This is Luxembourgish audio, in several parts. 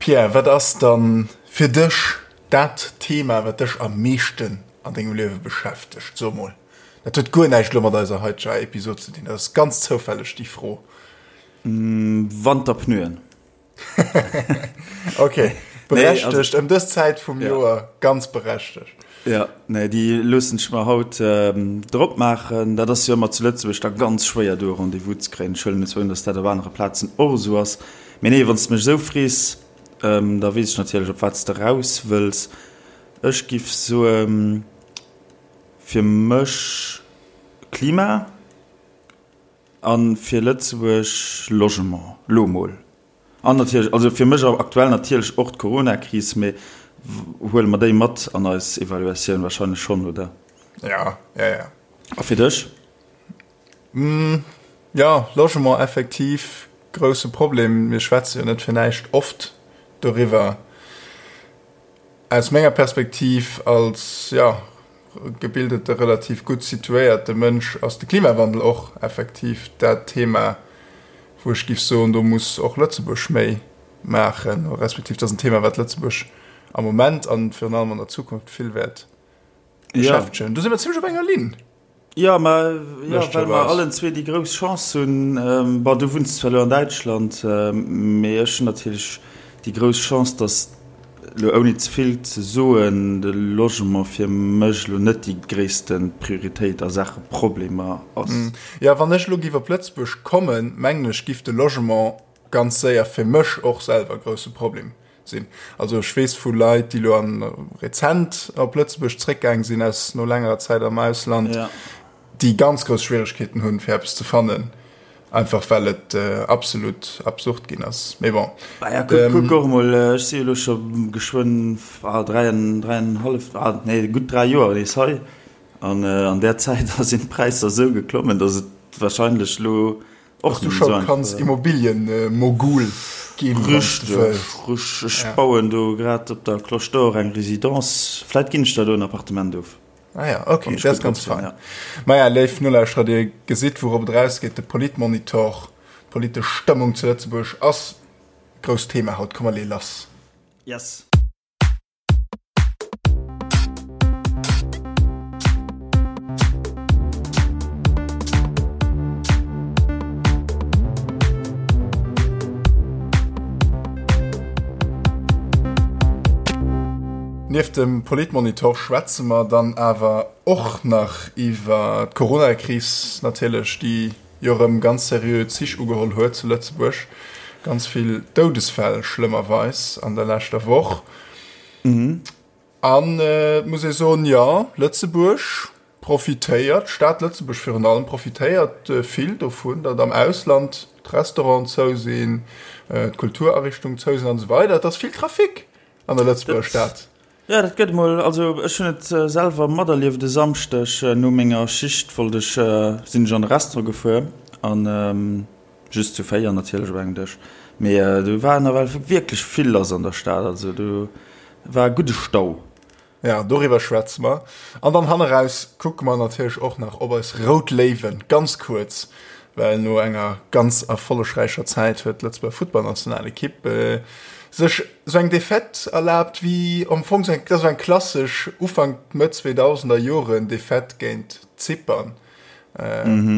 Pierre, wat ass dann fir dech dat Thema, wat dech am meeschten an dengem Liewe beschäftegt? So mol, dat huet guer näischt elo mat eiser haiteger Episod ze dinn, dat ass ganz zoufälleg déi Fro. Wanterpneuen. Ok, berechtegt, ëm dës Zäit vum Joer ganz berechtegt. Jo, nee, déi loossen ech mer haut drop maachen. Dat ass jo ëmmer zu Lëtzebuerg da ganz schwéier, do e Rendez-vous ze kréien. Ech huelen net un, datt dat op anere Plazen och esou ass. Mee nee, wann s de mech esou frees, da weess ech natierlech, op wat s de raus wëlls. Ech giff soen, fir mech Klima. A fir Lëtzebuerg Logement, lo mol. An natierlech, also fir mech aktuell natierlech och d'Coronakris, mee huele mer déi mat an eis Evaluatioun? Wahrscheinlech schonn, oder? Ja, ja, ja. A fir dech? Jo, Logement effektiv grousse Problem. Mir schwätze jo net fir näischt oft doriwwer. Aus menger Perspektiv als, jo, gebildete, relativ gutt situéierte Mënsch ass de Klimawandel och effektiv dat Thema, wou ech géif soen, do muss och Lëtzebuerg méi maachen, respektiv dat ass en Thema, wat Lëtzebuerg am Moment an virun allem an der Zukunft vill wäert beschäftegen. Do si mer zimlech op enger Linn. Jo, ma jo, well mer allen zwee déi grouss Chance hunn, bon, du wunns zwar elo an Däitschland, mee ech hunn natierlech déi grouss Chance, datt, elo ouni ze vill ze soen, de Logement fir mech elo net déi gréisste Prioritéit a Saache Problemer ass. Jo, wann ech elo giff op Lëtzebuerg kommen, mengen ech, giff de Logement ganz séier fir mech och selwer e grousse Problem sinn. Also ech weess vu Leit, déi elo an rezent op Lëtzebuerg zréckgaang sinn aus no längerer Zäit am Ausland, ja. déi ganz grouss Schwieregkeeten hunn, fir eppes ze fannen, einfach well et äh, absolut absurd ginn ass. Mee bon. Ah ja, kuck, kuck och mol, ech si elo scho geschwënn ah, dräienhallef, ah, nee, gutt 3 Joer nees hei. An äh, an där Zäit sinn d'Präisser esou geklommen, datt et wahrscheinlech lo Och du scho kanns Immobilienmogul ginn, wann s de wëlls. Richteg, ech bauen do grad op der Cloche d'Or eng Résidence. Vläit ginn ech der do en Appartement of. Ah ja, ok, dat ass ganz fein. Maja, léif Nolauschterer, dir gesitt, wourop et erausgeet, De Politmonitor, d'politesch Stëmmung zu Lëtzebuerg ass e grousst Thema haut. Komm, mer leeë lass. Yes. Nieft dem Politmonitor schwätze mer dann awer och nach iwwer d'Coronakris natierlech, déi jo erëm ganz seriö Zich ugeholl huet zu Lëtzebuerg. Ganz vill Doudesfäll schlëmmerweis an der leschter Woch. An et muss ee soen, jo, Lëtzebuerg profitéiert, d'Stad Lëtzebuerg virun allem profitéiert vill dovun, datt am Ausland d'Restauranten zou sinn, d'Kulturariichtungen zou sinn an esou weider. Et ass vill Trafic an der Lëtzebuerger Stad. Jo, dat gëtt emol. Also ech hunn et selwer materlieft, e Samschdeg no menger Schicht wollt ech, sinn ech an de Restaurant gefuer an just zu 4 natierlech op engem Dësch, mee do war nawell wierklech vill lass an der Stad, also do war e gudde Stau. Ja, doriwwer schwätze mer. An dann hanneraus kucke mer natierlech och nach op eis Rout Léiwen, ganz kuerz, well no enger ganz erfollegräicher Zäit huet d'Lëtzebuerger Futtballnationalekipp sech sou eng Defaite erlaabt wéi am Fong sou eng, dat ass sou eng klassesch Ufank, Mëtt 2000er Joren Defaite géint Zypern.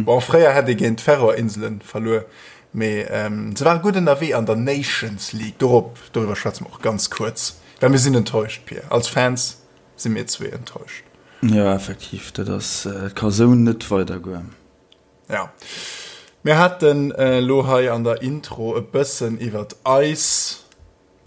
Bon, fréier hätt ee géint d'Färöer-Inselen verluer, mee se ware gutt ënnerwee an der Nations League. Dorop, doriwwer schwätze mer och ganz kuerz, well mir sinn enttäuscht, Pir. Als Fans si mir zwee enttäuscht. Jo, effektiv, dat ass, dat ka sou net weidergoen. Ja. Mir haten elo hei an der Intro e bëssen iwwert eis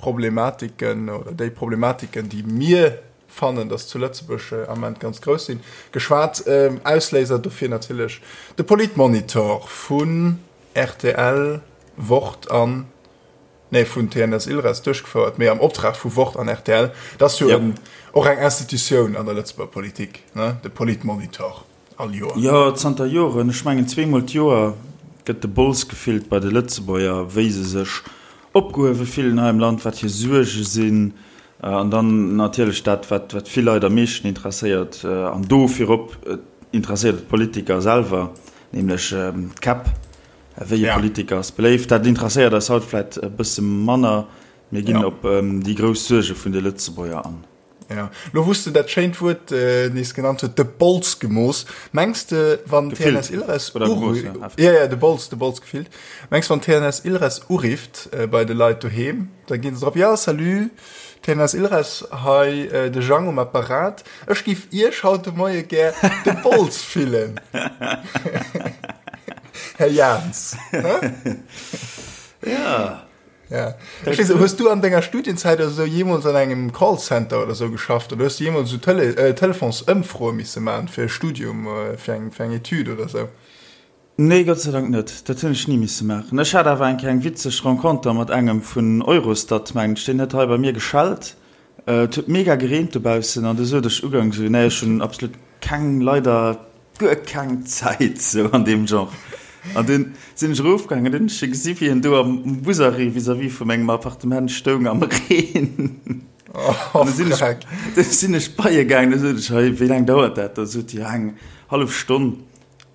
Problematiken oder déi Problematiken, déi mir fannen, dass zu Lëtzebuerg am Ament ganz grouss sinn, geschwat. Ausléiser dofir natierlech de Politmonitor vun rtl, Wort an, nee, vun TNS Ilres duerchgefouert, mee am Optrag vu Wort an rtl. Dat ass jo och eng Institutioun an der Lëtzebuerger Politik, ne, de Politmonitor. All Joer? Jo, zanter Joren. Ech mengen zweemol d'Joer gëtt de Bols gefillt bei de Lëtzebuerger, wéi se sech opgehuewe fillen hei am Land, wat hir Suerge sinn. An dann natierlech dat, wat vill Leit am meeschten interesséiert, an do virop interesséiert et d'Politiker selwer, nämlech d'Käpp. Wéi e Politiker ass beléift? Dat interesséiert eis haut vläicht e bësse manner. Mir ginn op déi grouss Suerge vun de Lëtzebuerger an. Ja, lo wou s de dat schéint Wuert nees genannt huet, de Bols gemooss. Mengs de, wann TNS Ilres ja, ja, de Bols, de Bols gefillt. Mengs wann TNS Ilres urifft bei de Leit doheem, da ginn se drop, ja, salut, TNS Ilres, hei de Jang um Apparat, ech giff Iech haut de Moie gär de Bols fillen. Här Jans. Ja. Ja. Ech weess, hues du an denger Studienzäit oder sou jeemools an engem Callcenter oder sou geschafft oder hues du jeemools sou Tele äh, Telefonsëmfroe misse man fir e Studium, äh, fir eng, fir eng Etüd oder sou? Nee, Gott sei Dank net. Dat hunn ech ni misse maachen. Ech hat awer eng Kéier eng witzeg Renconter mat engem vun Eurostat, mengen ech. Deen huet hei bei mir geschellt. Et huet mega gereent dobaussen an du sot ech ugangs esou, nee, ech hunn absolut keng, leider guer keng Zäit, sou an deem Genre. An dunn sinn ech erofgaangen an dunn hunn ech e gesi wéi en do am Busarrêt vis-à-vis vu mengem Appartement stoung am Reen. An du sinn ech, du sinn ech bei e gaangen, du sot ech, hei, wéi laang dauert dat? Da sot hie, eng hallef Stonn.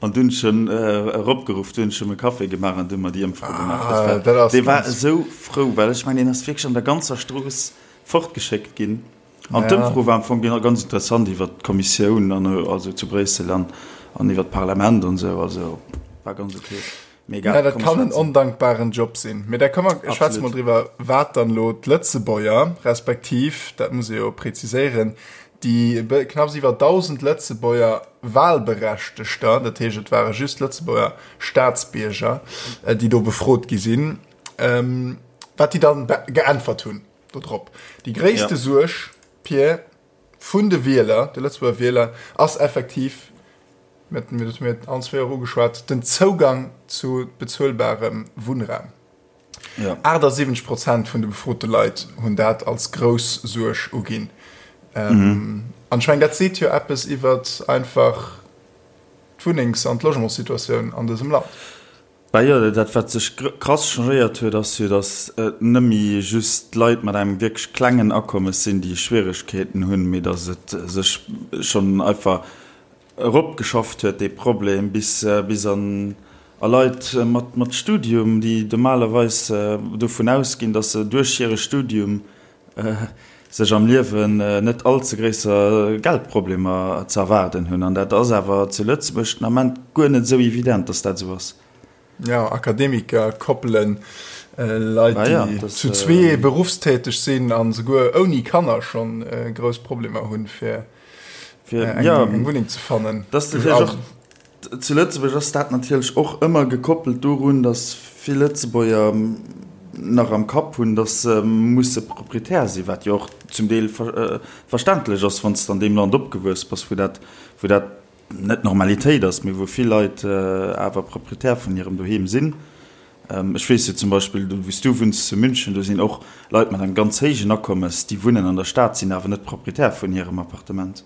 An dunn ech en eropgeruff, dunn hunn ech em e Café gemaach an du hu mer déi Ëmfro gemaach. Dat war, dee war esou frou, well ech mengen, deen ass wierklech an der ganzer Strooss fortgeschéckt ginn. An d'Ëmfro war am Fong ganz interessant iwwer d'Kommissioun an also zu Bréissel an an iwwer d'Parlament an esou. Also war ganz ok. Mee egal. Ja, dat kann en ondankbaren Job sinn. Mee da komm mer schwätze mol driwwer, wat dann elo d'Lëtzebuerger, respektiv, dat muss ee jo preziséieren, déi knapps iwwer 1.000 Lëtzebuerger Wahlberechtegter, dat heescht et ware just Lëtzebuerger Staatsbierger, déi do befrot gi sinn, wat déi dann geäntwert hunn. Dodrop. Déi gréisste ja. Suerg, Pierre, vun de Wieler, de Lëtzebuerger Wieler, ass effektiv, mir dat mir allen zwee och ugeschwat, den Zougang zu bezuelbarem Wunnraum. Ja. 78 Prozent vun de befrote Leit hunn dat als grouss Suerg uginn. Ähm, mhm. An ech meng, dat seet jo eppes iwwer einfach d'Wunnengs- an d'Logementssituatioun an dësem Land. Bah jo, dat wat sech krass changéiert huet, ass jo, datt et net méi just Leit mat engem wierklech klengen Akommes sinn, déi Schwieregkeeten hunn, mee datt et sech schonn einfach eropgeschafft huet, dee Problem, bis bis an a Leit mat mat Studium, déi normalerweis dovun ausginn, datt se duerch hire Studium sech am Liewen net all ze gréisser Geldproblemer ze erwaarden hunn. An dat ass awer zu Lëtzebuerg den Ament guer net esou evident, datt dat esou ass. Jo, Akademiker, Koppelen, Leit, déi zu zwee beruffstäteg sinn a souguer ouni Kanner schonn grouss Problemer hunn, fir eng Wunneng ze fannen. Zu Lëtzebuerg ass dat natierlech och ëmmer gekoppelt dorun, datt vill Lëtzebuerger nach am Kapp hunn, datt se musse Proprietär sinn, wat jo och zum Deel verständlech ass, wann s de an deem Land opgewuess bass, wou dat, wou dat net d'Normalitéit ass, mee wou vill Leit awer Proprietär vun hirem Doheem sinn. Ech weess jo zum Beispill, do wou s du wunns, zu München, do sinn och Leit mat engem ganz héijen Akommes, déi wunnen an der Stad, sinn awer net Proprietär vun hirem Appartement.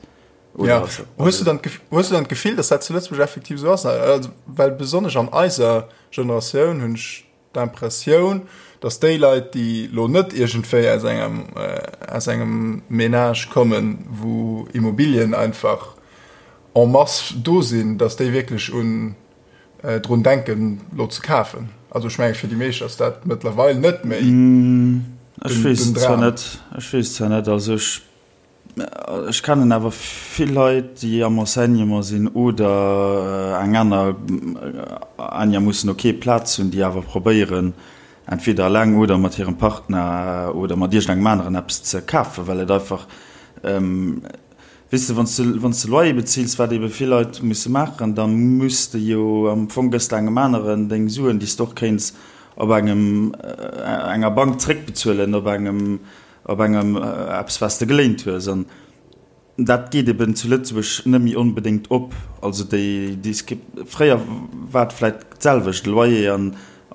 Ja. Hues du dann hues du dann d'Gefill, dass dat zu Lëtzebuerg effektiv esou ass? Also, well besonnesch an eiser Generatioun hunn ech d'Impressioun, dass déi Leit, déi lo net iergendwéi aus engem äh, aus engem Ménage kommen, wou Immobilien einfach en masse do sinn, dass déi wierklech un äh, drun denken, lo ze kafen. Also ech menge fir déi meescht ass dat mëttlerweil net méi mm, ech weess zwar net, ech weess zwar net, also ech Ech kennen awer vill Leit, déi am Enseignement sinn oder eng aner einigermoossen ok Plaz hunn, déi awer probéieren, entweder eleng oder mat hirem Partner oder mat iergendengem aneren eppes ze kafen, well et einfach, weess de, wann s de, wann s de Loyer bezills, wat ebe vill Leit musse maachen, da muss de jo am Fong, gëss de engem aneren deng Suen, déi s de och kéints op engem, enger Bank zréckbezuelen, op engem Op engem eppes wat s de geléint hues. An dat geet eben zu Lëtzebuerg net méi onbedéngt op. Also déi Disque, fréier war et vläit d'selwecht, e Loyer an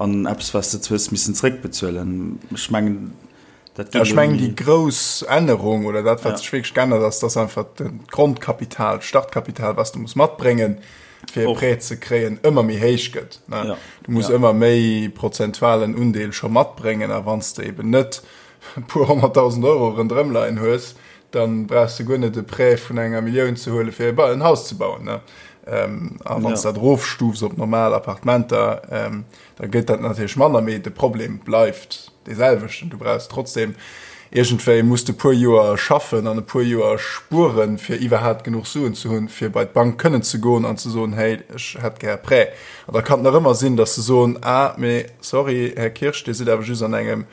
an eppes wat s de hues missen zréckbezuelen. Ech mengen dat geet elo net méi. Ech mengen déi grouss Ännerung oder dat wat sech wierklech geännert ass, dass einfach d'Grondkapital, d'Startkapital wat s de muss matbréngen, fir e Prêt ze kréien, ëmmer méi héich gëtt. Du muss ëmmer méi prozentualen Undeel scho matbréngen a wann s de eben net e puer honnerttausend Euro ronderëm leien hues, dann brauchs de guer net e Prêt vun enger Millioun ze huelen, fir en Haus ze bauen. A wann s de dat erofstufs op normal Appartementer, da gëtt dat natierlech manner, mee de Problem bleift dee selwechten. Du brauchs trotzdem iergendwéi, muss de puer Joer schaffen an e puer Joer spueren, fir iwwerhaapt genuch Suen ze hunn, fir bei d'Bank kënnen ze goen an ze soen, hey, ech hätt gär e Prêt. An da kann et nach ëmmer sinn, datt se soen, ah, mee sorry, Här Kirsch, Dir sidd awer just an engem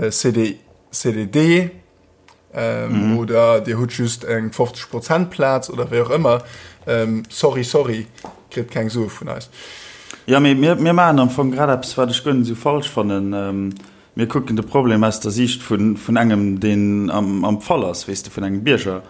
CD, CDD oder Dir hutt just eng 50 Prozent Plaz oder wéi och ëmmer. Sorry, sorry, kritt keng Sue vun eis. Jo, mee mir, mir maachen am Fong grad eppes, wat ech guer net esou falsch fannen. Mir kucken de Problem aus der Siicht vun, vun engem, deen am, am Fall ass, weess de, vun engem Bierger.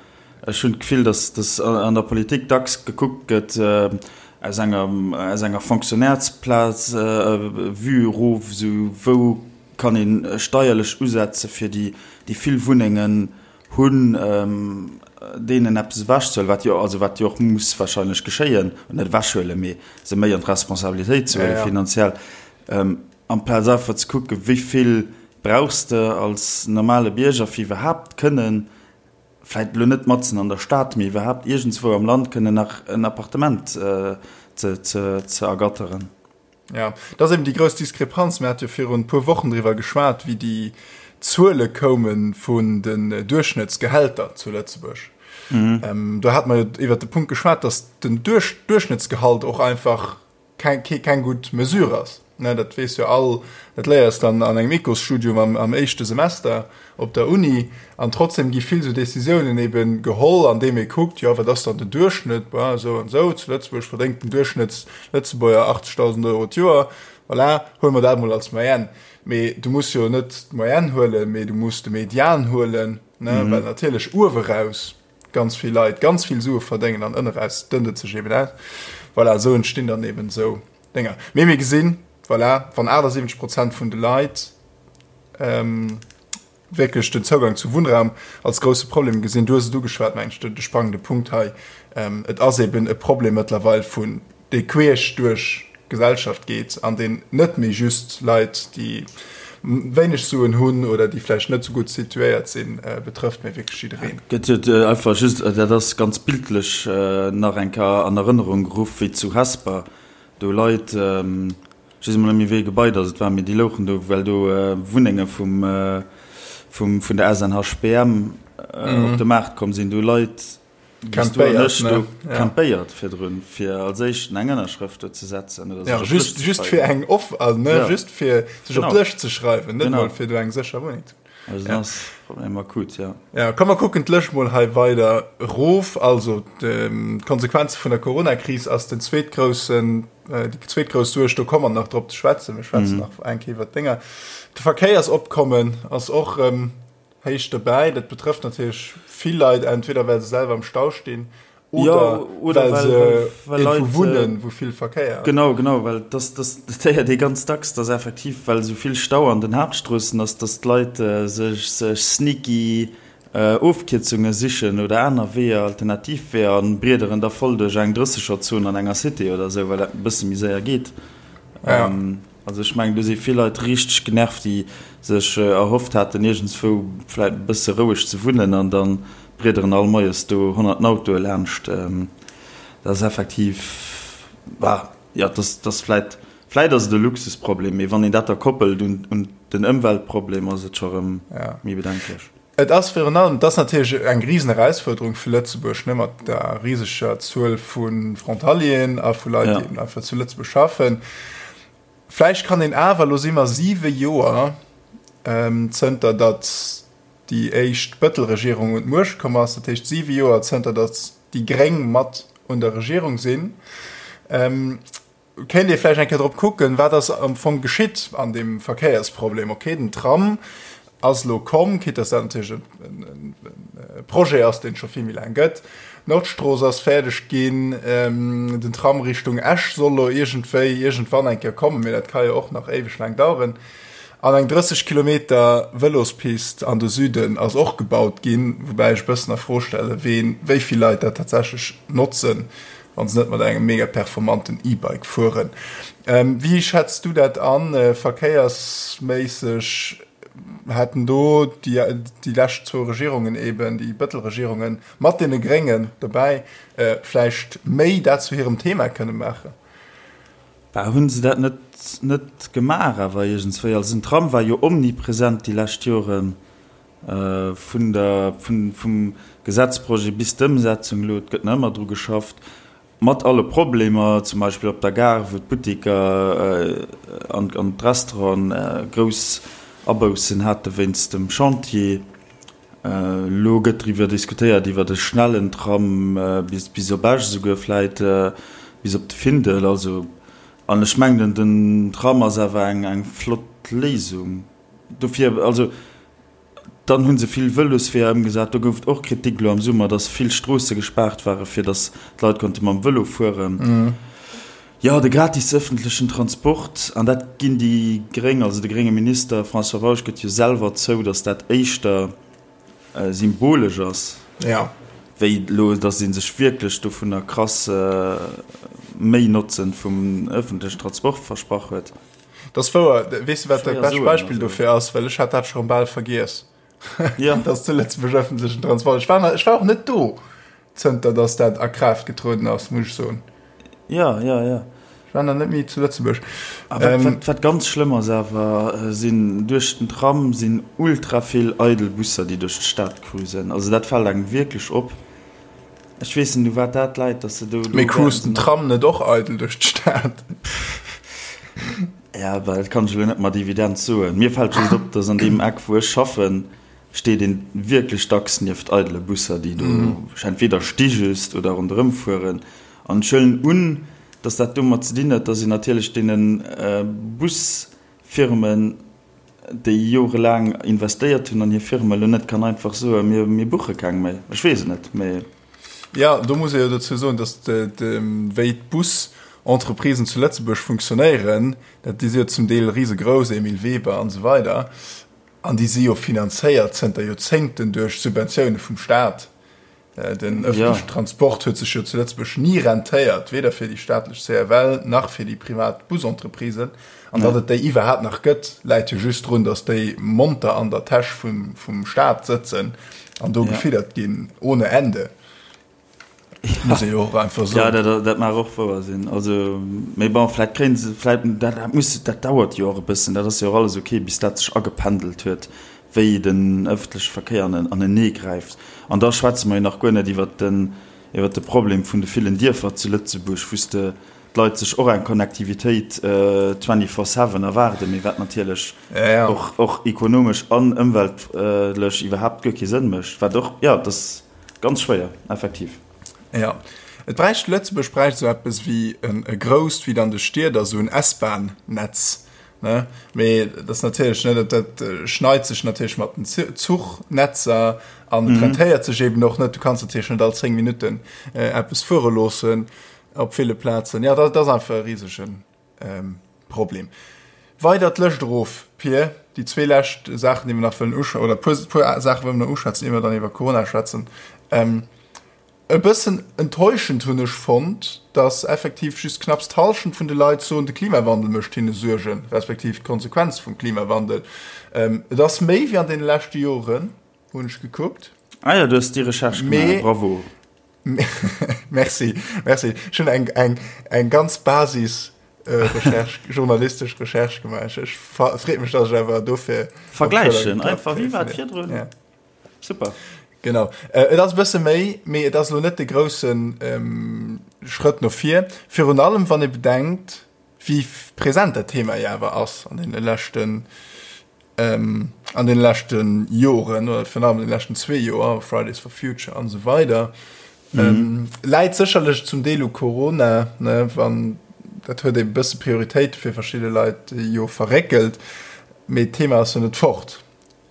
Ech hunn d'Gefill, datt, datt an der Politik dacks gekuckt gëtt aus enger, aus enger Fonctionnairesplaz, Vue erof, esou wou kann ee steierlech usetze fir déi, déi vill Wunnengen hunn, deenen eppes ewechzehuelen, wat jo, also wat jo och muss wahrscheinlech geschéien, net ewechhuelen, mee se méi an d'Responsabilitéit ze huelen finanziell. Amplaz einfach ze kucken, wéi vill brauchs de als normale Bierger, fir iwwerhaapt kënnen, vläicht elo net matzen an der Stad, mee iwwerhaapt iergendswou am Land kënnen nach en Appartement ze ergatteren. Jo, dat ass eben déi grouss Diskrepanz. Mir hate jo virun e puer Wochen driwwer geschwat, wéi déi Zuele koume vun den Duerchschnëttsgehälter zu Lëtzebuerg. Do hate mer jo iwwert de Punkt geschwat, datt den Duerchschnëttsgehalt och einfach keng, keng gutt Mesure ass. Ne, dat weess jo all, dat léiers dann an engem Ecosstudium am, am éischte Semester op der Uni. An trotzdem gi vill esou Decisiounen eben geholl, andeem ee kuckt, jo, wat ass dann den Duerchschnëtt, bon, esou an esou, zu Lëtzebuerg verdéngt den Duerchschnëttslëtzebuerger 80.000 Euro d'Joer, voilà, huele mer dat emol als Moyenne. Mee du muss jo net d'Moyenne huelen, mee du muss de Median huelen, ne, well natierlech ueweraus ganz vill Leit ganz vill Sue verdéngen an ënneraus dënnt et sech eben aus. Voilà, esou entstinn dann eben esou Dénger. Mee mir gesinn, voilà, wann 78 Prozent vun de Leit ähm, wierklech den Zougang zu Wunnraum als grousse Problem gesinn, du hues et ugeschwat, mengen ech, de sprangende Punkt hei, ähm, et ass eben e Problem mëttlerweil vun dee queesch duerch d'Gesellschaft geet an deen net méi just Leit, déi wéineg Suen hunn oder déi vläicht net esou gutt situéiert sinn, betrëfft, mee wierklech jiddereen. Gëtt jo einfach just, dat ass ganz bildlech nach eng Kéier an Erënnerung geruff, wéi zu Hesper do Leit, ech weess emol net méi wéi ee Gebai dass et war, mee déi louchen do, well do Wunnenge vum, vum, vun der SNHBM op de Maart komm sinn, do Leit, Campéiert, ne? Campéiert virdrun, fir als éischten eng Ënnerschrëft do ze setzen oder ja, just, just fir eng off, also, ne, ja. just fir sech op d'Lëscht ze schreiwen, net mol fir do eng sécher Wunneng ze Also ja. ass Problem akut, ja. Ja, komm mer kucken d'Lëscht mol hei weider erof. Also d'Konsequenze vun der Corona-Kris ass den zweetgroussen, äh, déi zweetgrouss Suerg, do komme mer nach drop ze schwätzen. Mir schwätzen mhm. nach eng Kéier iwwer d'Dénger. De Verkéiersopkommen ass och ähm, Héich dobäi. Dat betrëfft natierlech vill Leit, entweder well se selwer am Stau stinn oder, ja, oder well se well irgendwou wunnen, wou vill Verkéier ass. Genau, genau, well das, das, dat héiert ee ganz dacks, dass effektiv, well esou vill Stau an den Haaptstroossen ass, dass d'Leit sech, sech sneaky Ofkierzunge sichen oder aner Weeër, alternativ Weeër an briederen da voll duerch eng Drëssegerzon an enger Cité oder esou, well dat e bësse méi séier geet. Ja. Also ech mengen do si vill Leit richteg genervt, déi sech erhofft haten iergendswou vläit e bësse roueg ze wunnen an da briederen all moies do honnerten Autoe laanscht. Dat ass effektiv, bah, jo, dat ass vläit, vläit ass et e Luxusproblem, mee wann een dat da koppelt un den Ëmweltproblem, ass et scho rëm méi bedenklech. Et ass virun allem, et ass natierlech eng Riseneraussfuerderung fir Lëtzebuerg, ne, mat der riseger Zuel vu Frontalieren a vu Leit, déi eben einfach zu Lëtzebuerg schaffen. Vläicht kann een awer, elo si mer siwe Joer zënter datt déi éischt Bëttel-Regierung un d'Muecht komm ass, dat heescht siwe Joer zënter datt déi Gréng mat un der Regierung sinn, Kéint ee vläicht eng Kéier drop kucken, wat ass am Fong geschitt an deem Verkéiersproblem. Okay, den Tram ass elo komm, quitte dass dat natierlech e Projet ass, deen et scho vill méi laang gëtt. D'Nordstrooss ass fäerdeg ginn, den Tram Richtung Esch soll elo iergendwéi iergendwann eng Kéier kommen, mee dat ka jo och nach éiweg laang daueren. An eng 30 Kilometer Vëlospist an de Süden ass och gebaut ginn, woubäi ech e bëssen a Fro stellen, ween, wéi vill Leit dat tatsächlech notzen. Wann se net mat engem mega performanten E-Bike fueren. Wéi schätz du dat an, verkéiersméisseg? Hätten do déi, déi lescht zwou Regierungen eben, déi Bëttel-Regierungen mat deene Gréngen dobäi, vläicht méi dat zu hirem Thema kënne maachen? Bah, hunn se dat net, net gemaach awer iergendswéi? Also den Tram war jo omnipresent déi lescht Joren, vun der, vun, vum Gesetzprojet bis d'Ëmsetzung elo, et gëtt nach ëmmer dru geschafft. Mat alle Problemer, zum Beispill op der Gare, wou d'Butteker an d'Restauranten grouss Aboussen hate wéinst dem Chantier. Elo gëtt driwwer diskutéiert, iwwer e schnellen Tram bis op Esch esouguer, vläit bis op de Findel. Also, an ech mengen, den Tram ass awer eng flott Léisung dofir. Also. Dann hu se vill Vëlosweeër ëmgesat. Do gouf et och Kritik elo am Summer, datt vill Stroosse gespaart ware fir datt d'Leit konnte mam Vëlo fueren. Jo, de gratis ëffentlechen Transport, an dat ginn déi Gréng, also de grénge Minister François Bausch gëtt jo selwer zou, datt dat éischter symbolesch ass, wéi elo datt ee sech wierklech dovunner krass méi Notzen vum ëffentlechen Transport versprach huet. Dat ass wouer. Weess de, wat dat bescht Beispill dofir ass? Well ech hat dat scho bal vergiess. Ja. Dass zu Lëtzebuerg ëffentlechen Transport. Ech war, ech war och net do, zënter dass dat a Kraaft getrueden ass, muss ech soen. Ja, ja, ja. Ech war nach net méi zu Lëtzebuerg. A wat, ähm, wat, wat ganz schlëmm ass awer, äh, sinn duerch den Tram sinn ultra vill eidel Busser, déi duerch d'Stad cruisen. Also dat fält engem wierklech op. Ech weess net u wat dat läit, dass se do. Mee cruist den Tram net och eidel duerch d'Stad? Ja, well dat kann ech elo net mat Evidenz soen. Mir fält just op, dass an deem Eck wou ech schaffen, steet een wierklech dacks nieft eidele Busser, déi do entweder sti just oder ronderëm fueren. An ech huelen un, dass dat domat ze dinn huet, dass een natierlech deene Busfirmen, déi jorelaang investéiert hunn an hir Firma, elo net kann einfach soen, mir, mir buche keng méi. Ech weess et net, mee. Jo, do muss ee jo dozou soen, datt wéi d'Bus-Entreprisen zu Lëtzebuerg funktionéieren, dat déi si jo zum Deel risegrouss, Emile Weber an esou weider, an déi si jo finanzéiert zënter Joerzéngten duerch Subventioune vum Staat. Den ëffentlechen Transport huet sech jo zu Lëtzebuerg ni rentéiert, weder fir déi staatlech CFL nach fir déi privat Busentreprisen. An datt et déi iwwerhaapt nach gëtt, läit jo just drun, datt déi monter an der Täsch vum Staat sëtzen an do gefiddert ginn ohne Ende. Muss ee jo och einfach soen. Jo, dat mag och wouer sinn. Also, mee bon, vläicht kréie se, vläicht, dat muss, dat dauert jo och e bëssen, dat ass jo och alles ok, bis dat sech agependelt huet. wéi den ëffentleche Verkéier anenee gräift. An da schwätze mer jo nach guer net iwwert den, iwwert de Problem vun de villen Dierfer zu Lëtzebuerg, wou s de d'Leit sech och eng Connectivitéit twenty-four seven erwaarden, mee wat natierlech och, och ekonomesch an ëmweltlech iwwerhaapt guer kee Sënn mécht. Wat och, jo, et ass ganz schwéier, effektiv. Jo, et bräicht, Lëtzebuerg bräicht esou eppes wéi e grousst, wéi et an de Stied ass, esou en S-Bahn-Netz, Ne? Mee dat ass natierlech, ne, dat, dat äh, schneit sech natierlech mat den Zuchnetzer an mhm. rentéiert sech eben och net. Du kannst natierlech net all 10 Minuten äh, eppes fuere loossen op ville Plazen. Ja, dat, dat ass einfach e riesegen ähm, Problem. Weider d'Lëscht erof, Pir, déi zwee lescht Saachen, déi mer nach wëllen usch oder puer, puer Saache wëllen mer nach uschwätzen, ier mer dann iwwer Corona schwätzen. Ähm, E bëssen enttäuschend hunn ech fonnt, dass effektiv just knapps d'Hallschent vun de Leit soen, de Klimawandel mécht hinne Suergen, respektiv d'Konsequenz vum Klimawandel. Et ass méi wéi an deene leschte Joren, hunn ech gekuckt. Ah jo, du hues déi Recherche gemaach, bravo. Merci, merci. Ech hunn eng, eng, eng ganz Basis-Recherche, journalistesch Recherche gemaach. Ech freet mech, dass ech awer dofir. Vergläichen einfach, wéi war et virdrun? Super. Genau. Äh, et ass e bësse méi, mee et ass elo net de groussen ähm, Schrëtt no vir. Virun allem, wann ee bedenkt, wéi present dat Thema jo awer ass an deene leschten, ähm, an deene leschte Joren oder virun allem an de leschten zwee Joer, Fridays for Future an esou weider. Mhm. Ähm, läit sécherlech zum Deel u Corona, ne, wann dat huet e bësse Prioritéite fir verschidde Leit jo verréckelt, mee d'Thema ass jo net fort.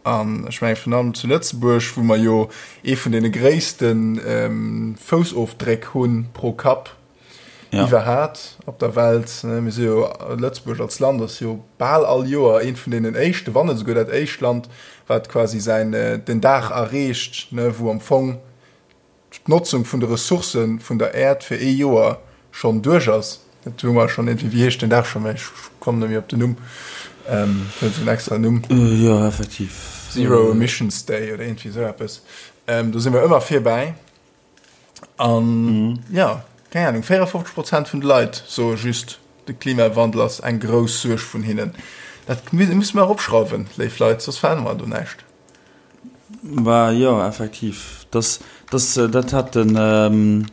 An ech mengen, virun allem zu Lëtzebuerg, wou mer jo ee vun deene gréisste Foussofdréck hu pro Kapp iwwerhat op der Welt. Mir si jo, Lëtzebuerg als Land ass jo bal all Joer eent vun deenen éischten, wann net esouguer dat éischt Land, wat quasi säin, den Dag erreecht, wou am Fong d'Notzung vun de Ressourcë vun der Äerd fir ee Joer schonn duerch ass. Dat hu mer schonn iergendwéi, wéi heescht deen Dag scho méi? Ech kommen net méi op den Numm. Huet esou en extra Numm. Jo, effektiv. Zero Emissions Day oder iergendwéi esou eppes. Do si mer ëmmer virbäi. An jo, keng Ahnung, 54 Prozent vun de Leit soe just, de Klimawandel ass eng grouss Suerg vun hinnen. Dat musse mer eropschrauwen, léif Leit, soss verännere mer do näischt. Bah jo, effektiv. Das, das, dat hat den,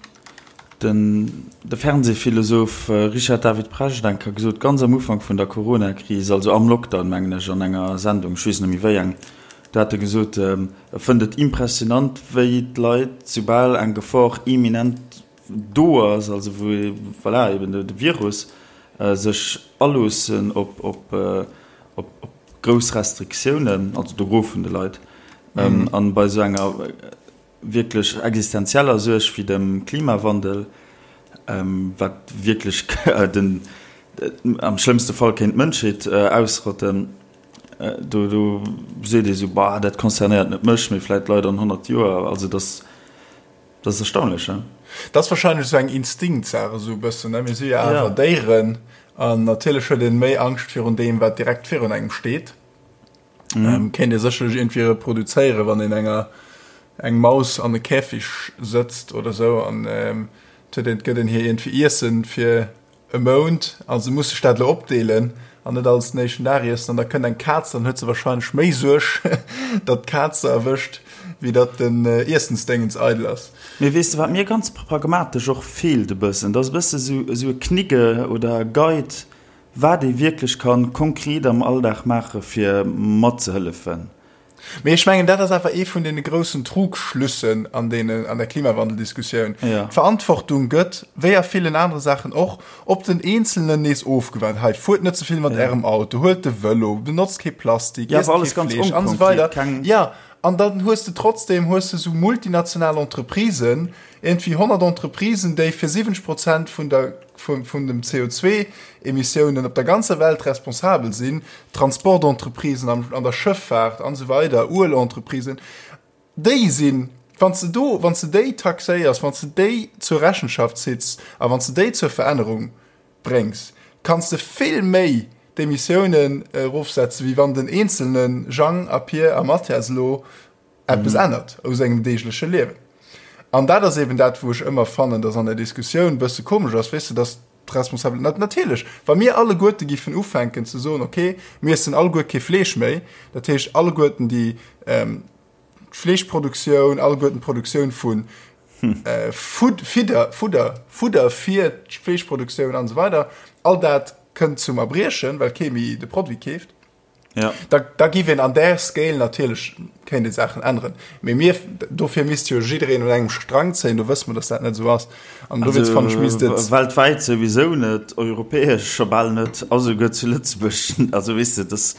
den, de Fernsehphilosoph Richard David Precht eng Kéier gesot, ganz am Ufank vun der Corona-Kris, also am Lockdown, mengen ech, an enger Sendung, ech weess net méi wéi eng, do hat e gesot, e fënnt et impressionant, wéi d'Leit, soubal eng Gefor imminent do ass, also wou, voilà, eben de Virus, sech aloossen op, op, op, op grouss Restriktiounen, also de Gros vun de Leit, an bei esou enger wierklech existenzieller Suerg wéi dem Klimawandel, wat wierklech den, am schlëmmste Fall kéint d'Mënschheet ausrotten, do, do seet ee sou, bah, dat concernéiert net mech, mee vläicht d'Leit an 100 Joer. Also dass. Dat ass erstaunlech, he? Dat ass wahrscheinlech esou eng Instinktsaach esou e bëssen, ne? Mir si jo awer Déieren an natierlech huet een méi Angscht virun deem, wat direkt virun engem steet. Kéint ee sécherlech iergendwéi reproduzéieren, wann een enger eng Maus an e Käfig sëtzt oder esou an et huet een, et gëtt een hir iergendwéi Iessen fir e Mount a se muss sech dat elo opdeelen an net alles den éischten Dag iessen an da kënnt eng Kaz, dann huet se wahrscheinlech méi Suerg, datt d'Kaz se erwëscht, wéi datt den Iessensdéngens eidel ass. Mee weess de wat mir ganz pragmatesch och feelt e bëssen, dat ass e bësse sou esou e Knigge oder e Guide, wat ee wierklech kann konkret am Alldag maache fir matzehëllefen. Mee ech mengen, dat ass awer ee vun deene groussen Trugschlüssen an deene, an der Klimawandeldiskussioun. Ja. D'Verantwortung gëtt, wéi a villen anere Saachen och, op den Eenzelnen nees ofgewaart. Hei, fuert net ze vill mat Ärem Auto, huelt de Vëlo, benotzt kee Plastik, Ja, iesst awer alles kee ganz Fleesch an esou onkonkret, weider. keng. Ja, an dann hues de trotzdem hues de sou multinational Entreprisen, iergendwéi 100 Entreprisen, déi fir 70 Prozent vun der, vun, vun dem CO2-Emissiounen op der ganzer Welt responsabel sinn, Transportentreprisen an, an der Schëffaart an esou weider, Uelentreprisen, déi sinn, wann s de do, wann s de déi taxéiers, wann s de déi zur Rechenschaft zitts a wann s de déi zur Verännerung bréngs, kanns de vill méi d'Emissiounen erofsetzen, wéi wann den eenzelne Jang a Pier a Mathias elo eppes ännert u sengem deegleche Liewen. An dat ass eben dat, wou ech ëmmer fannen, dass an der Diskussioun e bësse komesch ass, weess de, dass d'Responsabel, natierlech, wa mir alleguerte giffen ufänken ze soen, okay, mir iessen alleguer kee Fleesch méi, dat heescht alleguerten déi d'Fleeschproduktioun, alleguerten d'Produktioun vu Fidder, Fudder, Fudder fir d'Fleeschproduktioun an esou weider, all dat kënnt zum Erbriechen, well kee méi de Produit keeft. Ja. Da, da giff een an där Scale natierlech kéint ee Saachen änneren. Mee mir, dofir misst jo jiddereen un engem Strang zéien, do wësse mer, datt dat net esou ass. An dowéinst fannen ech misst et. Weltwäit souwisou net, europäesch scho bal net, a souguer zu Lëtzebuerg. Also weess de, dass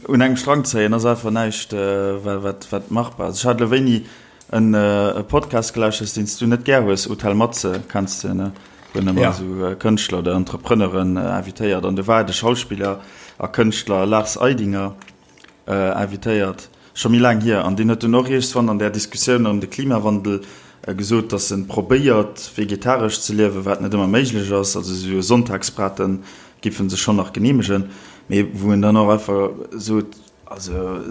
un engem Strang zéien ass einfach näischt, wat, wat machbar ass. Ech hat elo wéini en e Podcast gelauschtert, deen s du net gär hues, Hotel Matze, kenns de, ne? Wou en ëmmer esou Kënschtler oder Entrepreneuren invitéiert. An do war de Schauspiller a Kënschtler Lars Eidinger invitéiert, scho méi laang hier. An deen huet dunn och iergendswann an där Diskussioun ëm de Klimawandel gesot, datt en probéiert, vegetaresch ze liewen, wat net ëmmer méiglech ass. Also esou e Sonntagsbraten giff en sech schonn nach geneemegen. Mee wou en dann och einfach sot, also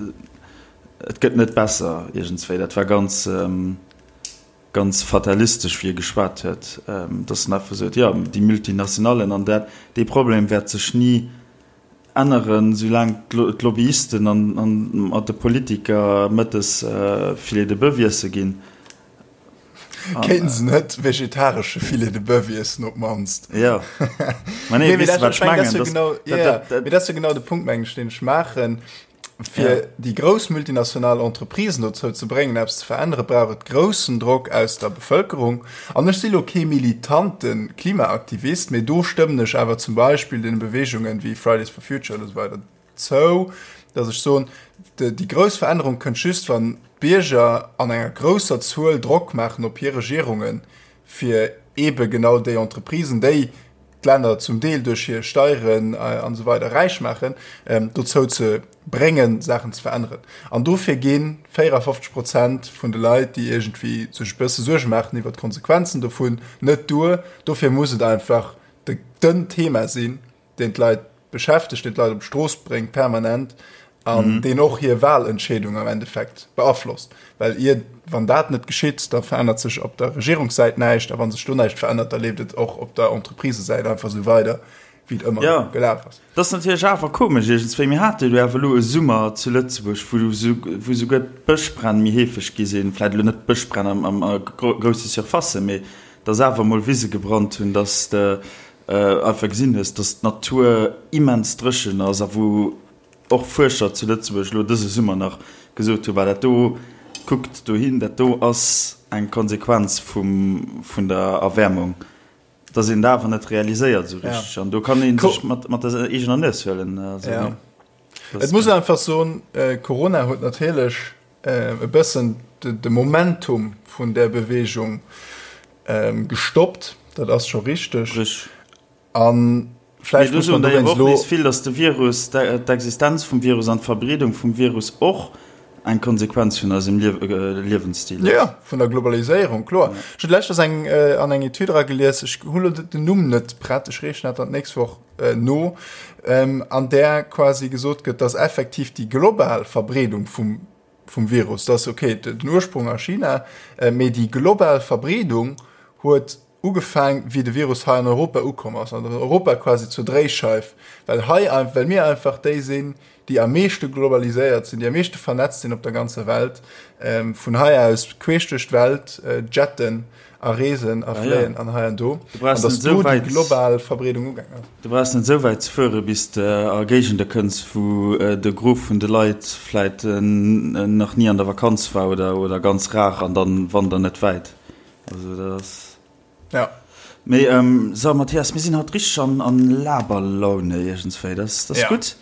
et gëtt net besser iergendswéi. Dat war ganz. ganz fatalistesch wéi e geschwat huet, dass en einfach sot, jo, déi Multinationallen an dat, dee Problem wäert sech ni änneren, soulaang d'Lobbyisten an mat de Politiker mëttes Filet de boeuf iesse ginn. Kéinten se net vegetaresche Filet de boeuf iessen op d'mannst? Jo, mä nee, weess de wat ech mengen? Mee dat ass jo genau de Punkt, mengen ech, deen ech maachen. Fir ja. déi grouss multinational Entreprisen dozou ze bréngen, eppes ze verännere, brauch et groussen Drock aus der Bevëlkerung. An ech si lo kee militante Klimaaktivist, mee do stëmmen ech awer zum Beispill deene Beweegungen wéi Fridays for Future oder esou weider zou, datt ech soen, déi grouss Verännerung kënnt just, wann d'Bierger an enger grousser Zuel Drock maachen op hir Regierungen, fir eebe genau déi Entreprisen, déi d'Länner zum Deel duerch hir Steieren an esou weider räich maachen, dozou ze bréngen, Saachen ze veränneren. An dofir gi 54 Prozent vun de Leit, déi iergendwéi sech e bësse Suerge maachen iwwer d'Konsequenzen dovun, net duer. Dofir muss et einfach. de, den Thema sinn, deen d'Leit beschäftegt, deen d'Leit op d'Strooss bréngt permanent an deen och hir Wahlentscheedung am Endeffekt beaflosst. Well ier, wann dat net geschitt, da verännert sech op der Regierungssäit näischt a wa sech do näischt verännert, da leeft et och op der Entreprisesäit einfach esou weider, wéi et ëmmer Ja. gelaf ass. Dat ass natierlech awer komesch iergendswéi. Mir hate jo awer elo e Summer zu Lëtzebuerg, wou wou souguer d'Bëschbränn méi heefeg gi sinn. Vläicht elo net d'Bëschbränn am am a grousse Surfacen, mee dass awer emol Wise gebrannt hunn, dass de einfach gesinn hues, dass d'Natur immens dréchen ass a wou och Fuerscher zu Lëtzebuerg elo dëse Summer nach gesot hunn, bah dat do, kuckt dohin, dat do ass eng Konsequenz vum, vun der Erwäermung, dass een dat awer net realiséiert esou richteg. An do kann ee sech mat, mat der eegener Nues huelen. Also, ja. Et muss einfach soen, Corona huet natierlech e bëssen de Momentum vun där Beweegung gestoppt, dat ass scho richteg. A vläicht muss man dowéinst elo. Nees vill, datt de Virus, d'Existenz vum Virus an d'Verbreedung vum Virus och eng Konsequenz vun eisem Liewensstil ass. Jo, vun der Globaliséierung, kloer. Ech hunn leschtens eng an eng Etüd eragelies, ech hunn elo den Numm net prett, ech reechen dat dann d'nächst Woch no, an där quasi gesot gëtt, datt effektiv déi global Verbreedung vum vum Virus, dass ok den Ursprung a China, mee déi global Verbreedung huet ugefaang wéi de Virus hei an Europa ukomm ass, an Europa quasi zur Dréischeif, well hei well mir einfach déi sinn, déi am meeschte globaliséiert sinn, déi am meeschte vernetzt sinn op der ganzer Welt, vun hei aus queesch duerch d'Welt jetten a reesen a fléien an hei an do, an dass do déi global Verbreedung ugaang ass. Du brauchs net esou wäit ze fuere bis de a Géigende kënns, wou de Gros vun de Leit vläit nach ni an der Vakanz war oder oder ganz rar an dann wander net wäit. Also dat ass. Ja. Mee so Mathias, mir sinn haut richteg an an Laberlaune iergendswéi, dat ass dat ass gutt.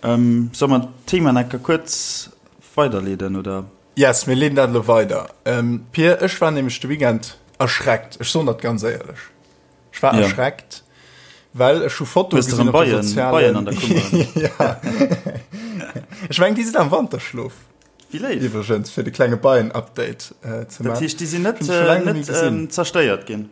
Solle mer d'Thema nach enker kuerz weiderleeden oder? Yes, mir leeden dat elo weider. Pir, ech war nämlech de Weekend erschreckt, ech soen dat ganz éierlech. Ech war ja. erschreckt, well ech hu Foto gesinn op de sozialen Beien an der Kummer. ja. Ech meng, déi sinn am Wanterschlof. Wéi léif. Iwwregens, fir de klenge Beien-Update äh, ze maachen. Dat heescht, déi sinn net, äh, net ähm, zerstéiert ginn?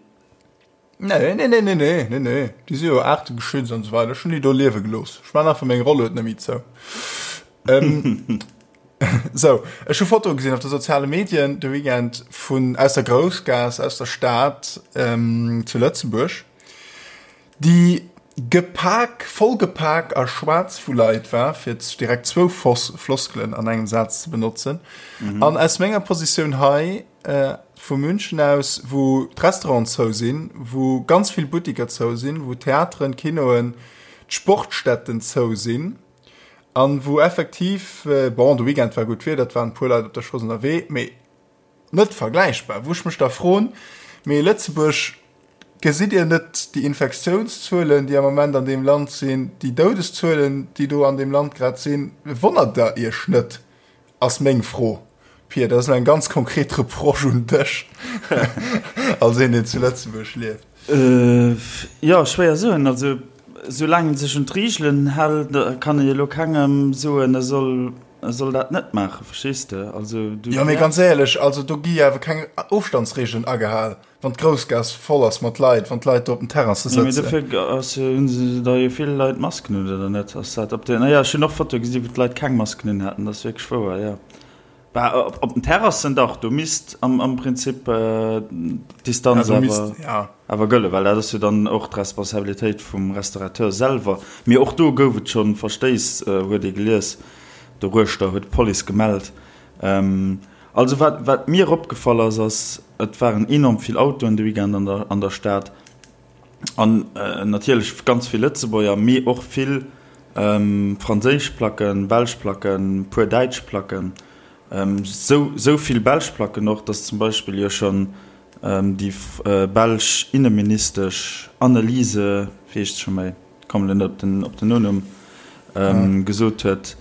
Nee, nee, nee, nee, nee, nee, nee. Déi si jo aartegeschützt an esou weider. Ech hunn déi do liewe gelooss. Ech man einfach meng Rollued net méi zou. Ähm, Sou, ech hu Fotoe gesinn op de soziale Medien de Weekend vun aus der Groussgaass, aus der Stad zu Lëtzebuerg, déi gepak, vollgepak a schwaarz vu Leit war, fir direkt zwou Floskelen an engem Saz ze benotzen. An aus menger Positioun hei vu München aus, wou d'Restauranten zou sinn, wou ganz vill Buttiker zou sinn, wou Theateren, Kinoen, d'Sportstätten zou sinn, An wou effektiv, bon, de Weekend war gutt Wieder, et waren e puer Leit op der Strooss ënnerwee, mee net vergläichbar. Wou ech mech da froen, mee Lëtzebuerg, gesitt Dir net déi Infektiounszuelen, déi am Moment an deem Land sinn, déi Doudeszuelen, déi do an deem Land grad sinn, wonnert Der Iech net? Ass meng Fro. Pia, dat ass elo eng ganz konkret Reproche un dech als een, deen zu Lëtzebuerg lieft. Jo, schwéier soen. Also soulaang ee sech un d'Reegelen hält, kann ee elo kengem soen, e soll, e soll dat net maachen, verstees de? Also du. Jo, mee ganz éierlech, also do gi jo awer keng Ofstandsreegelen agehal. Wann d'Groussgaass voll ass mat Leit, wann d'Leit do op den Terrasse sëtzen. Mee dofir ass jo, hunn se da jo vill Leit Masken un, oder net? Ass dat op den, naja, ech hunn och Fotoe gesi wou d'Leit keng Masken un haten, dat ass wierklech wouer, jo. Bah, op den Terrassen dach, do misst am, am Prinzip d'Distanz ja, awer, ja. awer gëllen, well dat ass jo dann och d'Responsabilitéit vum Restaurateur selwer. Mee och do gouf et schonn Verstéiss, huet ee gelies, doruechter huet d'Police gemellt. Also wat, wat mir opgefall ass, ass, et waren enorm vill Autoen de Weekend an der, an der Stad. An natierlech ganz vill Lëtzebuerger, mee och vill franséisch Placken, belsch Placken, puer däitsch Placken. Sou, sou vill belsch Placken och, dass zum Beispill jo schonn déi belsch Inneministesch Anneliese, wéi heescht se scho méi, kommen elo net op den, op den Nonumm, gesot huet,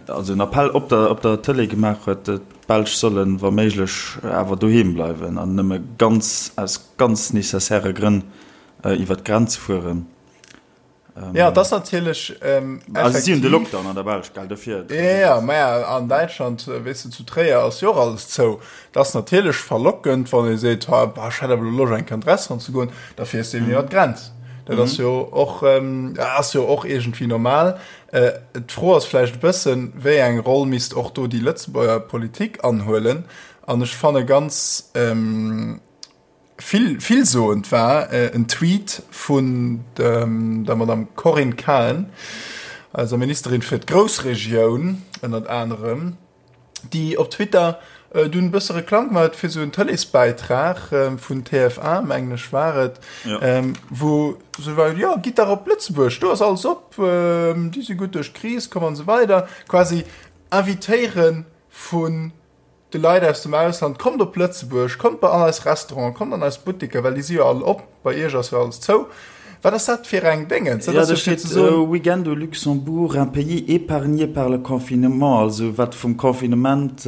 also en Appell op der op der Tëlee gemaach huet, d'Belsch sollen wa méiglech awer doheem bleiwen an nëmme ganz aus ganz nécessairë Grënn iwwer d'Grenz fueren. Jo, et ass natierlech Also si hunn de Lockdown an der Belsch, gell, dofir. Jo, jo, maja, an Däitschland, weess de, zu Tréier ass jo och alles zou. Et ass natierlech verlockend, wann ee seet, ha, bah, ech hätt awer elo Loscht eng Kéier an d'Restaurant ze goen, da fiers de eben iwwer d'Grenz. Dat ass jo och, ass jo och iergendwéi normal. D'Fro ass vläicht e bëssen, wéi eng Roll misst och do déi Lëtzebuerger Politik anhuelen? An ech fanne ganz vill, villsoend war en Tweet vun der Madame Corinne Cahen, eiser Ministerin fir d'Groussregioun ënnert anerem, déi op Twitter dunn e bësse Reklamm gemaach huet fir esou en Tëleesbäitrag vun TF1, mengen ech war et, wou se war, jo gitt dach op Lëtzebuerg, do ass alles op, déi si gutt duerch d'Kris komm an esou weider. Quasi invitéiere vun de Leit aus dem Ausland, kommt op Lëtzebuerg, kommt bei an eis Restauranten, kommt an eis Buttiker, well déi si jo all op, bei iech ass jo alles zou. Wat ass dat fir eng Déngens? Dat ass jo fir ze soen. Week-end au Luxembourg, un pays épargné par le confinement, also wat vum Confinement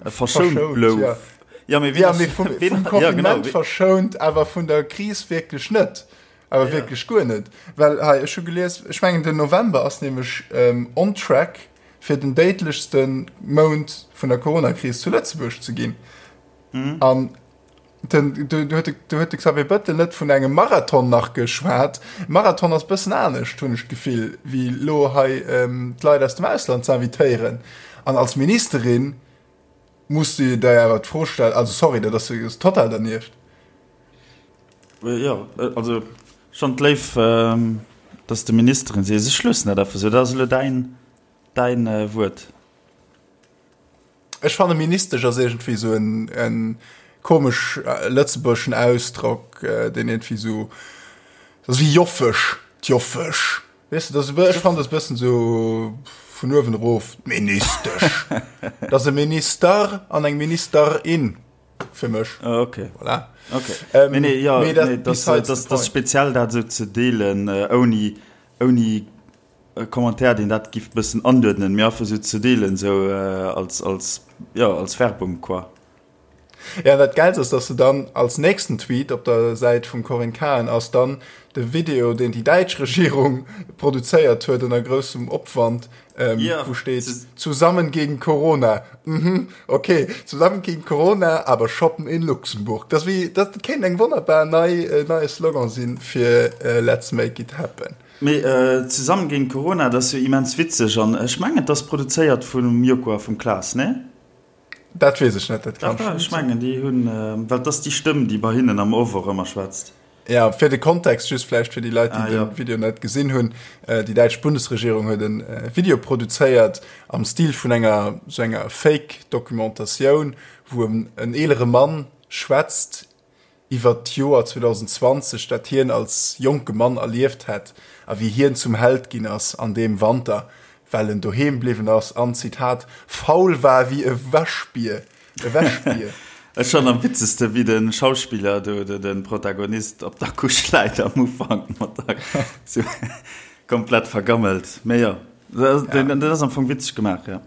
verschount blouf. Jo, mee vum Confinement verschount, awer vun der Kris wierklech net. Awer wierklech guer net. Well hei, ech hu gelies, ech mengen den November ass nämlech on track fir den déidlechste Mount vun der Coronakris zu Lëtzebuerg ze ginn. An Den, du, du, huet, du huet de Xavier Bëttel net vun engem Marathon nach geschwat. Marathon ass bëssen anescht, hunn ech d'Gefill, wéi lo hei ähm, d'Leit aus dem Ausland ze invitéieren. An als Ministerin muss du der awer d'Fro stellen, also sorry, dat ass, ass total dernieft. Äh, ja, äh, also schon d'Léif, ähm, dass de Ministerin sees. Ech loossen dat einfach sou, dat ass elo däin, däin äh, Wuert. Ech fanne Ministesch ass iergendwéi esou en, en komesch lëtzebuergeschen Ausdrock, deen iergendwéi esou, dat ass wéi Joffesch, d'Joffesch, weess de, dat ass e bë, ech fannen dat e bëssen esou vun uewen erof, d'Ministesch. Dat ass e Minister an eng Ministerin fir mech. Ah, okay. Voilà. Okay. Ähm, nee, nee, ja, nee, dat, nee, das, das, das speziell dat esou ze deelen, ouni, ouni E Commentaire deen dat giff bëssen anduerdnen, mee einfach sou ze deelen sou als als jo als Werbung quoi. Jo, an dat Gäilst ass, dass se dann als nächsten Tweet op der Säit vum Corinne Cahen ass dann de Video, deen déi däitsch Regierung produzéiert huet ënner groussem Opwand, wou steet, Zusammen gegen Corona. Mhm, ok, zusammen gegen Corona, aber shoppen in Luxemburg. Dat ass wéi, dat kéint eng wonnerbar nei, neie Slogan sinn fir Let's make it happen. Mee Zesammen géint Corona, dat ass jo immens witzeg an ech mengen et ass produzéiert vum Joko a vum Klaas, nee? Dat weess ech net, dat kann schon. Ech mengen déi hunn, well et ass déi Stëmm déi bei hinnen am Off och ëmmer schwätzt. Ja, fir de Kontext just vläicht fir déi Leit, déi de Video net gesinn hunn, Déi däitsch Bundesregierung huet e Video produzéiert am Stil vun enger sou enger Fake-Documentatioun, wou en eelere Mann schwätzt iwwert d'Joer 2020, dat hien als jonke Mann erlieft hätt a wéi hien zum Held ginn ass an deem Wanter, well en doheem bliwwen ass an, Zitat, faul war wéi e Wäschbier. E Wäschbier. Ech fannen am witzegste wéi de Schauspiller do, de Protagonist op der Couche läit am Ufank mat der sou komplett vergammelt. Mee jo, dat ass am Fong witzeg gemaach, jo.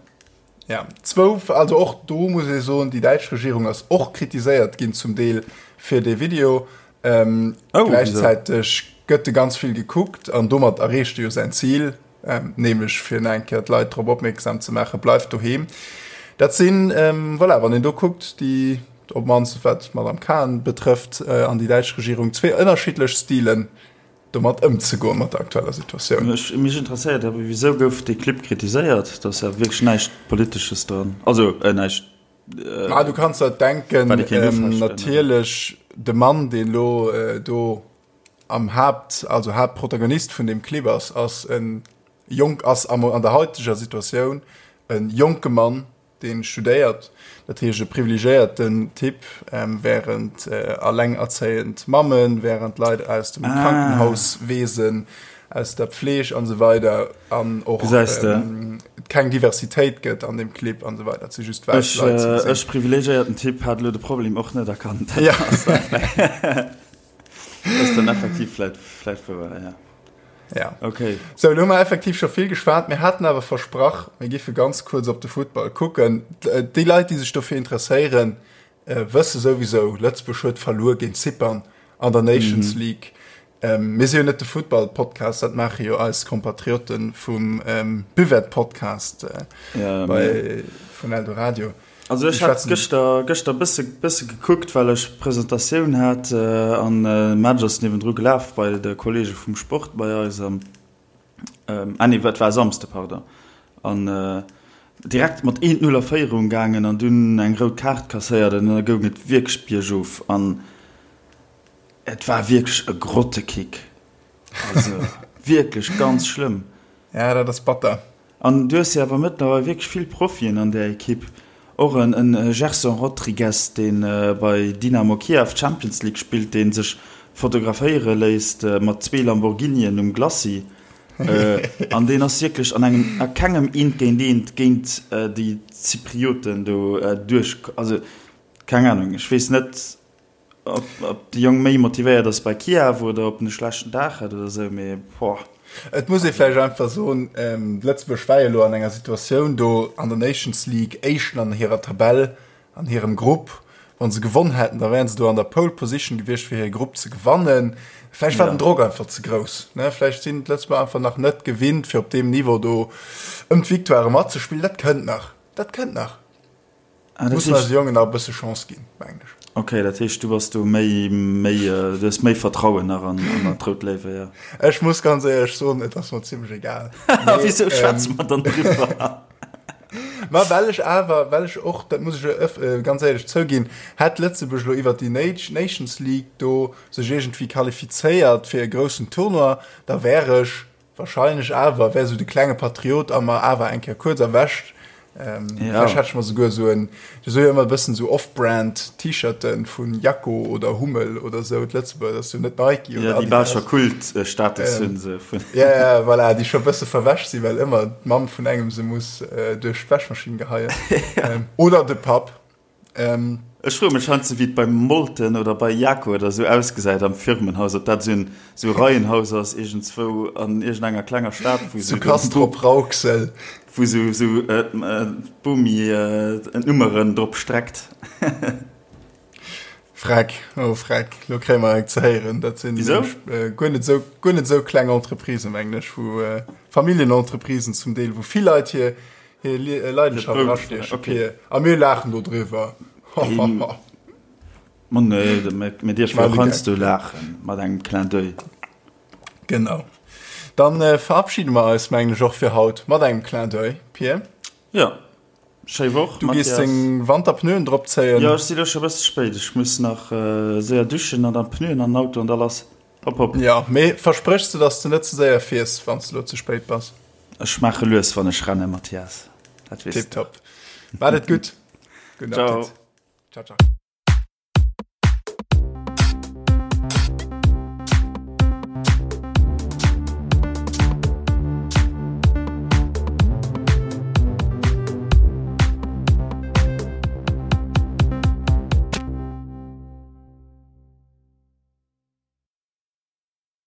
Ja, zwou, also och do muss ee soen, déi däitsch Regierung ass och kritiséiert ginn zum Deel fir dee Video. Ähm, oh, gläichzäiteg gëtt de ganz vill gekuckt an domat erreecht e jo säin Zil, ähm, nämlech fir nach eng Kéier d'Leit drop opmierksam ze maachen, bleift doheem. Dat sinn, ähm, voilà, wann een do kuckt, déi, op d'mannst wat d'Madame Cahen betrëfft, äh, an déi däitsch Regierung, zwee ënnerschiddlech Stilen, domat ëmzegoen, mat der aktueller Situatioun. Mech interesséiert awer, wisou gouf dee Clip kritiséiert? Do ass ja wierklech näischt Politesches dran, also näischt. Ma du kanns der denken, natierlech de Mann, deen elo do am Haapt, also Haaptprotagonist vun deem Clip ass, ass e jonk, ass an der haiteger Situatioun e jonke Mann, deen studéiert, dat heescht e privilegéierten Typ, während allengerzéiend Mammen, während Leit aus dem Krankenhauswesen, aus der Pfleg an esou weider an och keng Diversitéit gëtt an deem Clip an esou weider, et si just wäiss Leit ze gesinn. Ech, privilegéierten Typ, hat elo de Problem och net erkannt. Dat ass dann effektiv vläicht wouer, jo. Ja. Okay. So, lo hu mer effektiv scho vill geschwat. Mir haten awer versprach, mir giffe ganz kuerz op de Futtball kucken. Déi Leit, déi sech dofir interesséieren, äh, wësse souwisou, Lëtzebuerg huet verluer géint Zypern an der Nations mhm. League. Ähm, mir si jo net de Futtball-Podcast, dat maache jo eis Kompatriotten vum ähm, Buvette-Podcast äh, ja, bei, vun Eldoradio. Also ech hat gëschter gëschter bësse bësse gekuckt, well ech Presentatioun hat an de Match ass niewendru gelaf bei de Kollege vum Sport bei eis an ah nee, et war e Samsde, pardon. An direkt mat 1, 0 a Féierung gaangen an dunn eng rout Kaart kasséiert an da goung et wierklech biergof an et war wierklech e Grottekick. Also wierklech ganz schlëmm. Ja, dat ass batter. An du hues jo awer mëttlerweil wierklech vill Profien an där Ekipp. Och en Gerson Rodrigues, dee bei Dynamo Kiew d'Champions League spillt, dee sech fotograféiere léisst mat zwee Lamborghinien um Glacis. An deen ass wierklech an engem, a kengem Eent géint Eent géint déi Zyprioten do duerch. Also keng Anung, ech weess net. Ob de Jong méi motivéiert ass bei Kiew oder ob en e schlechten Dag hat oder sou, mee boah. Et muss ee vläicht einfach soen, Lëtzebuerg war jo elo an enger Situatioun do an der Nations League, Éischten an hirer Tabell, an hirem Grupp. Wa se gewonn hätten, da wären se do an der Pole Position gewiescht, fir hire Grupp ze gewannen. Vläicht war den Drock einfach ze grouss, ne? Vläicht sinn d'Lëtzebuerger einfach nach net gewinnt, fir op deem Niveau do ëm d'Victoire matzespillen. Dat kënnt nach, dat kënnt nach. Ah, dat Mussen eise Jongen nach e bësse Chance ginn, mengen ech. Okay, dat heescht, du bass do méi, méi, du hues méi Vertrauen nach an, an d'Rout Léiwe, jo. Ech muss ganz éierlech soen, et ass mer zimlech egal. A wisou schwätze mer dann driwwer? Ma well ech awer, well ech och, dat muss ech ganz éierlech zouginn, hätt Lëtzebuerg elo iwwert déi Nations League do sech iergendwéi qualifizéiert fir e groussen Tournoi, da wär ech Wahrscheinlech awer wär sou de klenge Patriot a mer awer eng Kéier kuerz erwächt. Ähm, ja. Vielleicht hätt ech mer souguer sou en, du so jo ëmmer e bëssen sou Off-Brand T-Shirten vun Jako oder Hummel oder sou, d'Lëtzebuerger, dat ass jo net Nike oder Ja, déi bal scho Kult-Status ähm, hunn se. Vun. Ja, ja, voilà, déi scho bësse verwäsch sinn, well ëmmer d'Mamm vun engem se muss äh, duerch d'Wäschmaschinn geheien. ja. ähm, oder de Papp. Ähm, Ech froe mech heiansdo, wéi et beim Molten oder bei Jako oder esou ausgesäit am Firmenhaus, ob dat esou en esou Reihenhaus ass iergendzwou an iergendenger klenger Stad, wou Zu esou Castrop-Rauxel. wou esou esou d'Bomi d'Nummeren drop streckt. Freck, oh Freck, lo kréie mer eng ze héieren. Dat sinn Wisou? guer net esou guer net esou kleng Entreprisen, mengen ech, wou Familljenentreprisen zum Deel, wou vill Leit hir Hir Leidenschaft erastiechen. Okay. A mir laachen do driwwer. Ma nee, mir dierfen och heiansdo laachen, mat engem Clin d'oeil. Genau. Dann verabschiede mer eis, mengen ech, och fir haut mat engem Clin d'oeil, Pir. Jo. Schéi Woch, Mathias. Du gees deng Wanterpneuen drop zéien. Jo, ech si lo scho e bësse spéit. Ech muss nach séier duschen an dann d'Pneuen an den Auto an da lass. Hopp, hopp. Jo, mee verspréchs de, dass de net ze séier fiers, wann s de lo ze spéit bass? Ech maache lues, wann ech rennen, Mathias. Dat weess de. Tipptopp. Maat et gutt. Gudden Appetit. Ciao. Ciao, ciao.